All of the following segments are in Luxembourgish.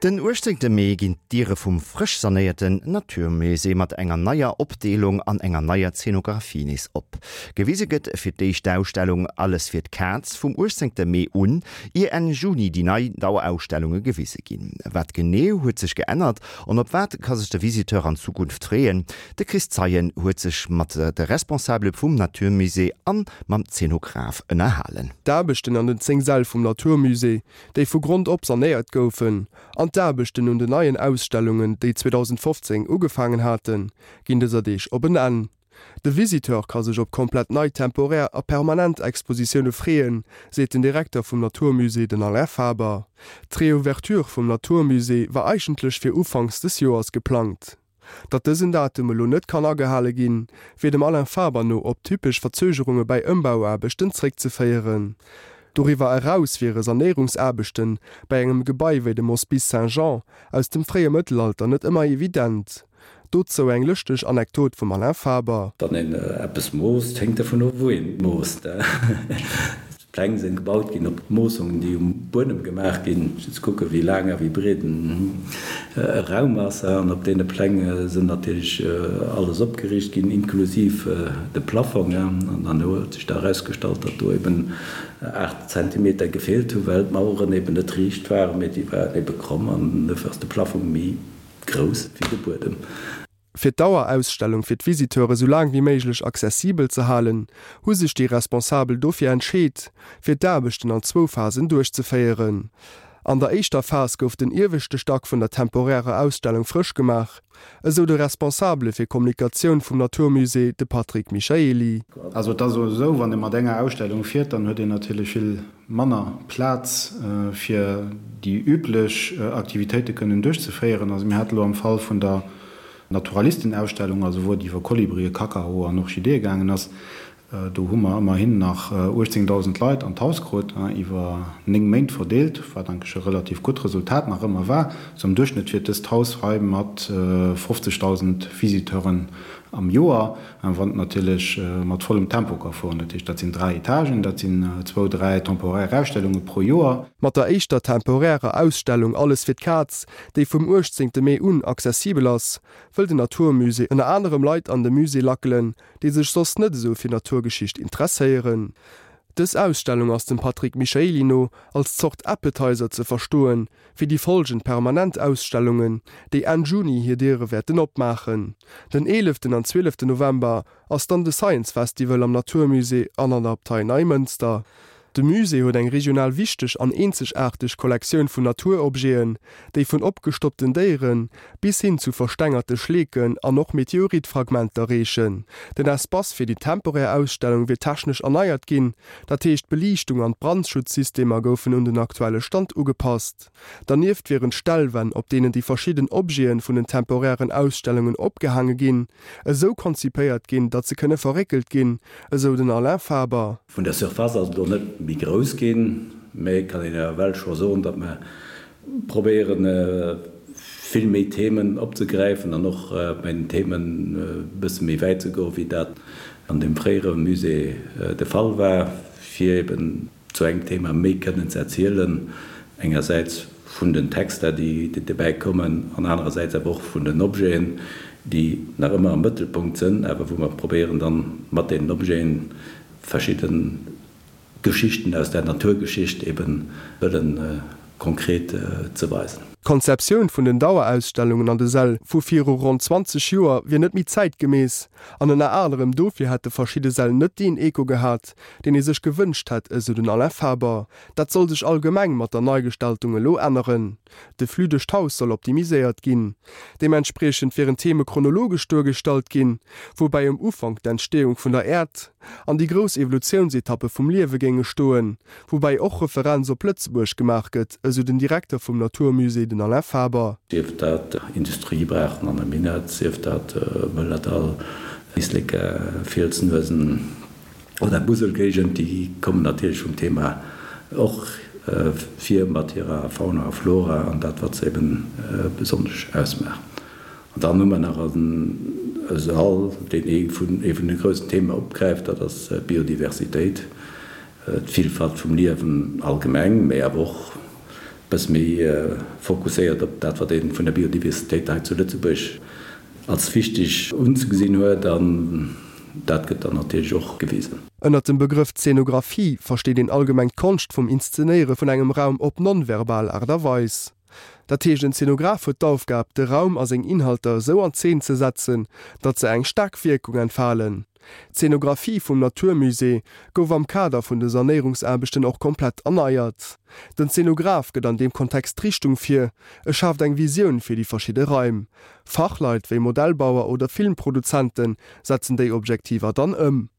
Den 18 Mee ginn d'Diere vum frësch sanéierten Natur Musée mat enger neier Opdeelung an enger neier Zeenografie nees op. Gewise gëtt fir d'éischt d'Ausstellung Alles fir d'Kaz vum 18 Mee un, ier Enn Juni déi nei Dauerausstellunge gewise ginn. Wat genee huet sech geännert an op wat ka sech de Visiteur an Zukunft freeën? De Chris Zeien huet sech mat de Responsabele vum Natur Musée an mam Zeenograf ënnerhalen. D'Aarbechten an den 10 Säll vum Natur Musée déi vu Grond op sanéiert goufen, an d'Aarbechten un den neien Ausstellungen, déi 2015 ugefaangen haten, ginn dëser Deeg op en Enn. De Visiteur ka sech op komplett nei temporär a permanent Expositioune freeën, seet den Direkter vum Natur Musée, den Alain Faber. D'Reouverture vum Natur Musée war eigentlech fir ufanks des Joers geplangt. Datt dësen Datum elo net kann agehale ginn, wier dem Alain Faber no op typesch Verzögerunge bäi Ëmbauaarbechten zréckzeféieren. Doriwwer eraus wiere Sanéierungsaarbechte bäi engem Gebai wéi dem Hospice Saint-Jean aus dem fréie Mëttelalter net ëmmer evident. Dozou eng lëschteg Anekdot vum Alain Faber. Wann een eppes moosst, héngt dervun of, wou een et moosst. D'Pläng sinn gebaut ginn op d'Moossungen, déi um Buedem gemaach ginn, fir ze kucken, wéi laang a wéi breet e Raum ass. An op deene Pläng sinn natierlech alles opgeriicht ginn, inklusiv de Plaffong. An dann huet sech da erausgestallt, datt do eben 8 Zentimeter gefeelt hunn, well d'Maueren eben net riicht waren, mee déi waren ebe kromm an dofir ass de Plaffong méi grouss wéi de Buedem. Fir d'Dauerausstellung fir d'Visiteure sou laang wéi méiglech accessibel ze halen, hu sech déi Responsabel dofir entscheet, fir d'Aarbechten an zwou Phasen duerchzeféieren. An der éischter Phas gouf den ieweschte Stack vun der temporärer Ausstellung frësch gemaach, esou de Responsabele fir Kommunikatioun vum Natur Musée, de Patrick Michaely. Also et ass esou, wann ee mat enger Ausstellung fiert, dann huet een natierlech vill manner Plaz fir déi üblech Aktivitéite kënnen duerchzeféieren. Also mir hate lo am Fall vun der Naturalistenausstellung, also wou et iwwer Kolibrien, Kakaoe an Orchideeë gaangen ass, do hu mer ëmmerhin nach 18.000 Leit an d'Haus krut, iwwer 9 Méint verdeelt, wat eigentlech e relativ gutt Resultat nach ëmmer war. Sou am Duerchschnëtt fiert dëst Haus hei mat 50.000 Visiteuren am Joer. Wann et natierlech mat vollem Tempo ka fueren. Dat heescht, dat sinn 3 Etagen, dat sinn zwou, dräi temporaire Ausstellunge pro Joer. Mat der éischter temporärer Ausstellung Alles fir d'Kaz, déi vum 18 Mee un accessibel ass, wëll den Natur Musée ënner anerem Leit an de Musée lackelen, déi sech soss net esou fir Naturgeschicht interesséieren. Dës Ausstellung ass dem Patrick Michaely no als Zort Appetizer ze verstoen, fir déi folgend permanent Ausstellungen, déi Enn Juni hir Diere wäerten opmaachen. Den eeleften an zwieleften November ass dann de Science Festival am Natur Musée an an der Abtei Neimënster. De Musée huet eng regional wichteg an eenzegaarteg Kollektioun vun Naturobjeten, déi vun opgestoppten Déiere bis hin zu verstengerte Schleeken an och Meteoritfragmenter reechen. Den Espace fir déi temporär Ausstellung wier technesch erneiert ginn, Dat heescht, d'Beliichtung an d'Brandschutzsystemer goufen un den aktuelle Stand ugepasst. Dernieft wieren d'Stellwänn, op deenen déi verschidden Objete vun den temporären Ausstellungen opgehaange ginn, esou konzipéiert ginn, datt se kënne verréckelt ginn, esou den Alain Faber. Vun der Surface ass et elo net méi grouss ginn, mä et kann een ewell scho soen, datt mer probéieren, vill méi Themen opzegräifen an och bei den Themen e bësse méi wäit ze goen, wéi dat an deem fréiere Musée de Fall war, fir eben zu engem Thema méi kënnen ze erzielen, engersäits vun den Texter, déi dobäi kommen, an anerersäits awer och vun den Objeten, déi nach ëmmer am Mëttelpunkt sënn, awer wou mer probéieren dann mat deenen Objeten verschidden Geschichten aus der Naturgeschicht eben wëllen konkret ze weisen. D'Konzeptioun vun den Dauerausstellungen an de Säll vu viru ronn 20 Joer wier net méi zäitgemäss an ënner anerem dofir hätte verschidde Säll net deen Echo gehat, deen ee sech gewënscht hätt, esou den Alain Faber. Dat soll sech allgemeng mat der Neigestaltung elo änneren. De Flux duerch d'Haus soll optimiséiert ginn. Deementspriechend wieren d'Theme chronologesch duergestallt ginn, woubäi um Ufank d'Entsteeung vun der Äerd an déi grouss Evolutiounsetappe vum Liewe géinge stoen, woubäi och Referenz op Lëtzebuerg gemaach gëtt, esou den Direkter vum Natur Musée, den Alain Faber. Sief dat Industriebraachen an der Minett, sief dat Mëllerdall, Éislek, Fielsnuesen. Oder Muselgéigend, déi kommen natierlech vum Thema och vir mat hirer Fauna a Flora an dat wat se eben besonnesch ausmaacht. An dann hu mer nach e Sall, deen ee vun ee vun de groussen Theme opgräift, dat ass d'Biodiversitéit, d'Villfalt vum Liewen allgemeng, mä awer och. Bësse méi fokusséiert op dat, wat ee vun der Biodiversitéit hei zu Lëtzebuerg als wichteg unzegesinn huet. An dat gëtt dann natierlech och gewisen. Ënnert dem Begrëff Zeenografie versteet een allgemeng d'Konscht vum Inszenéiere vun engem Raum op non-verbal Aart a Weis. Dat heescht, en Zeenograf huet d'Aufgab, de Raum a seng Inhalter esou an Zeen ze setzen, datt se eng staark Wierkung entfalen. D'Zeenografie vum Natur Musée gouf am Kader vun de Sanéierungsaarbechten och komplett erneiert. Den Zeenograf gëtt an deem Kontext d'Richtung vir, e schaaft eng Visioun fir déi verschidde Raim. Fachleit wéi Modellbauer oder Filmproduzente setzen déi Objektiver dann ëm.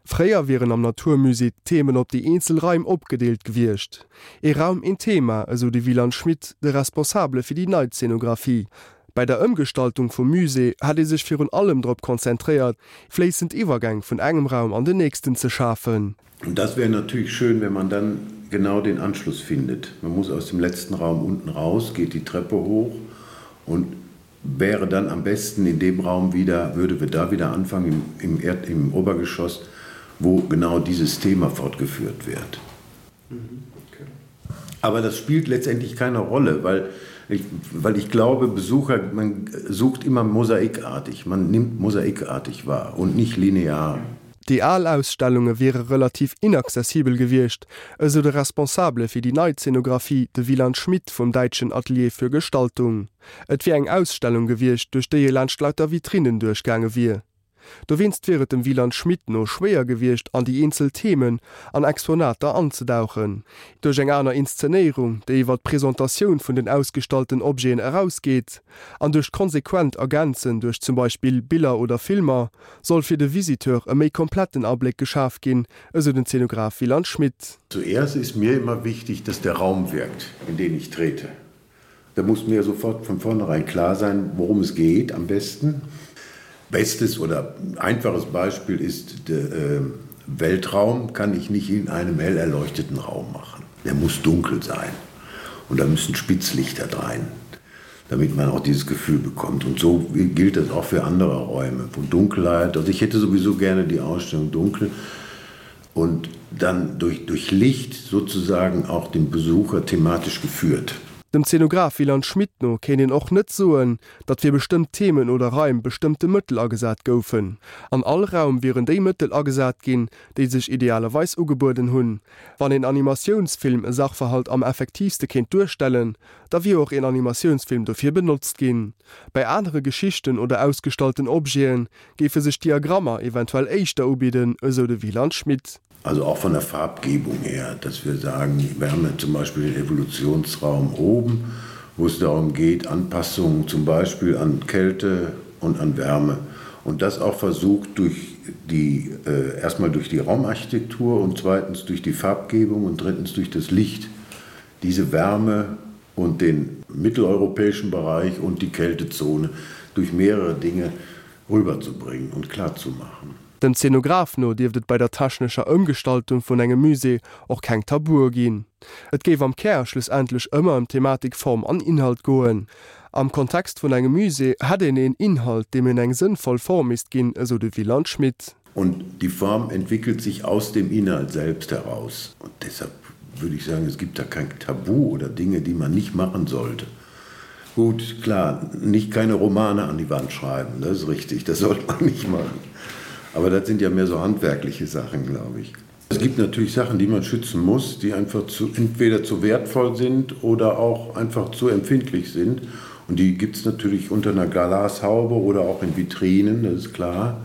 Fréier wieren am Natur Musée d'Themen op déi eenzel Raim opgedeelt gewiescht. Ee Raum, een Thema, esou de Wieland Schmit, de Responsabele fir déi nei Zeenografie. Bei der Ëmgestaltung vum Musée hätt ee sech virun allem drop konzentréiert, fléissend Iwwergäng vun engem Raum an den nächsten ze schafen. Und das wäre natürlich schön, wenn man dann genau den Anschluss findet. Man muss aus dem letzten Raum unten raus, geht die Treppe hoch und wäre dann am besten in dem Raum wieder, würde wir da wieder anfangen im, im, Erd, im Obergeschoss, wo genau dieses Thema fortgeführt wird. Mhm, okay. Aber das spielt letztendlich keine Rolle, weil ich, weil ich glaube, Besucher man sucht immer mosaikartig, man nimmt mosaikartig wahr und nicht linear. Déi al Ausstellunge wiere relativ inaccessibel gewiescht, esou de Responsabele fir déi nei Zeenografie, de Wieland Schmidt vum däitschen Atelier für Gestaltung. Et wier eng Ausstellung gewiescht, duerch déi ee laanscht lauter Vitrinnen duerchgaange wier. Dowéinst wier et dem Wieland Schmit no schwéier gewiescht, an déi eenzel Themen an Exponater anzedauchen. Duerch eng aner Inszenéierung, déi iwwer d'Presentatioun vun den ausgestallten Objeten erausgeet, an duerch d'konsequent Ergänzen duerch zum Beispill Biller oder Filmer, soll fir de Visiteur e méi kompletten Abléck geschaf ginn, esou den Zenograf Wieland Schmit. Zuerst ist mir immer wichtig, dass der Raum wirkt, in den ich trete. Da muss mir sofort von vornherein klar sein, worum es geht am besten. Bestes oder einfaches Beispiel ist der äh, Weltraum kann ich nicht in einem hell erleuchteten Raum machen. Der muss dunkel sein und da müssen Spitzlichter rein, damit man auch dieses Gefühl bekommt. Und so gilt das auch für andere Räume, wo Dunkelheit, also ich hätte sowieso gerne die Ausstellung dunkel und dann durch, durch Licht sozusagen auch den Besucher thematisch geführt. Dem Zenograf Wieland Schmit no kéint een och net soen, datt fir bestëmmt Themen oder Raim bestëmmte Mëttel agesat goufen. An all Raum wieren déi Mëttel agesat ginn, déi sech idealerweis ugebueden hunn. Wann een Animatiounsfilm e Sachverhalt am effektiivste kéint duerstellen, da wier och een Animatiounsfilm dofir benotzt ginn. Bei anere Geschichten oder ausgestallten Objete géife sech Diagrammer eventuell éischter ubidden, esou de Wieland Schmit. Also auch von der Farbgebung her, dass wir sagen, wir haben ja zum Beispiel den Evolutionsraum oben, wo es darum geht, Anpassungen zum Beispiel an Kälte und an Wärme und das auch versucht durch die äh, erstmal durch die Raumarchitektur und zweitens durch die Farbgebung und drittens durch das Licht diese Wärme und den mitteleuropäischen Bereich und die Kältezone durch mehrere Dinge rüberzubringen und klarzumachen. Dem Zenograf no dierft et bei der technescher Ëmgestaltung vun engem Musée och keng Tabue ginn. Et géif am Kär schlussendlech ëmmer ëm Thematik, Form an Inhalt goen. Am Kontext vun engem Musée hätt een een Inhalt, deem een eng sënnvoll Form misst ginn, esou de Wieland Schmit. Und die Form entwickelt sich aus dem Inhalt selbst heraus. Und deshalb würde ich sagen, es gibt da kein Tabu oder Dinge, die man nicht machen sollte. Gut, klar, nicht keine Romane an die Wand schreiben, das ist richtig, das sollte man nicht machen. Aber das sind ja mehr so handwerkliche Sachen, glaube ich. Es gibt natürlich Sachen, die man schützen muss, die einfach zu, entweder zu wertvoll sind oder auch einfach zu empfindlich sind. Und die gibt es natürlich unter einer Glashaube oder auch in Vitrinen, das ist klar.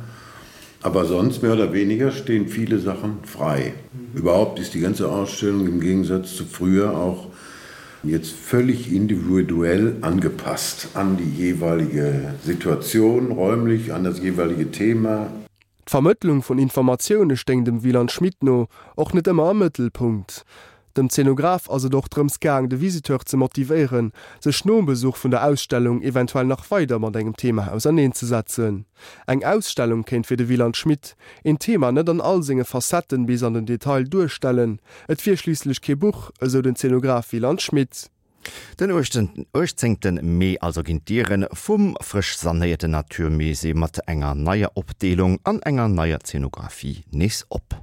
Aber sonst mehr oder weniger stehen viele Sachen frei. Mhm. Überhaupt ist die ganze Ausstellung im Gegensatz zu früher auch jetzt völlig individuell angepasst an die jeweilige Situation räumlich, an das jeweilige Thema. D'Vermëttlung vun Informatioune stéing dem Wieland Schmit no och net ëmmer am Mëttelpunkt. Dem Zenograf ass et och drëms gaang, de Visiteur ze motivéieren, sech nom Besuch vun der Ausstellung eventuell nach weider mat engem Thema auserneenzesetzen. Eng Ausstellung kéint fir de Wieland Schmit een Thema net an all senge Facetten bis an den Detail duerstellen, et wier schliisslech kee Buch, esou den Zenograf Wieland Schmit. Den 18 Mee also ginn d'Diere vum frësch sanéierten Natur Musée mat enger neier Opdeelung an enger neier Zeenografie nees op.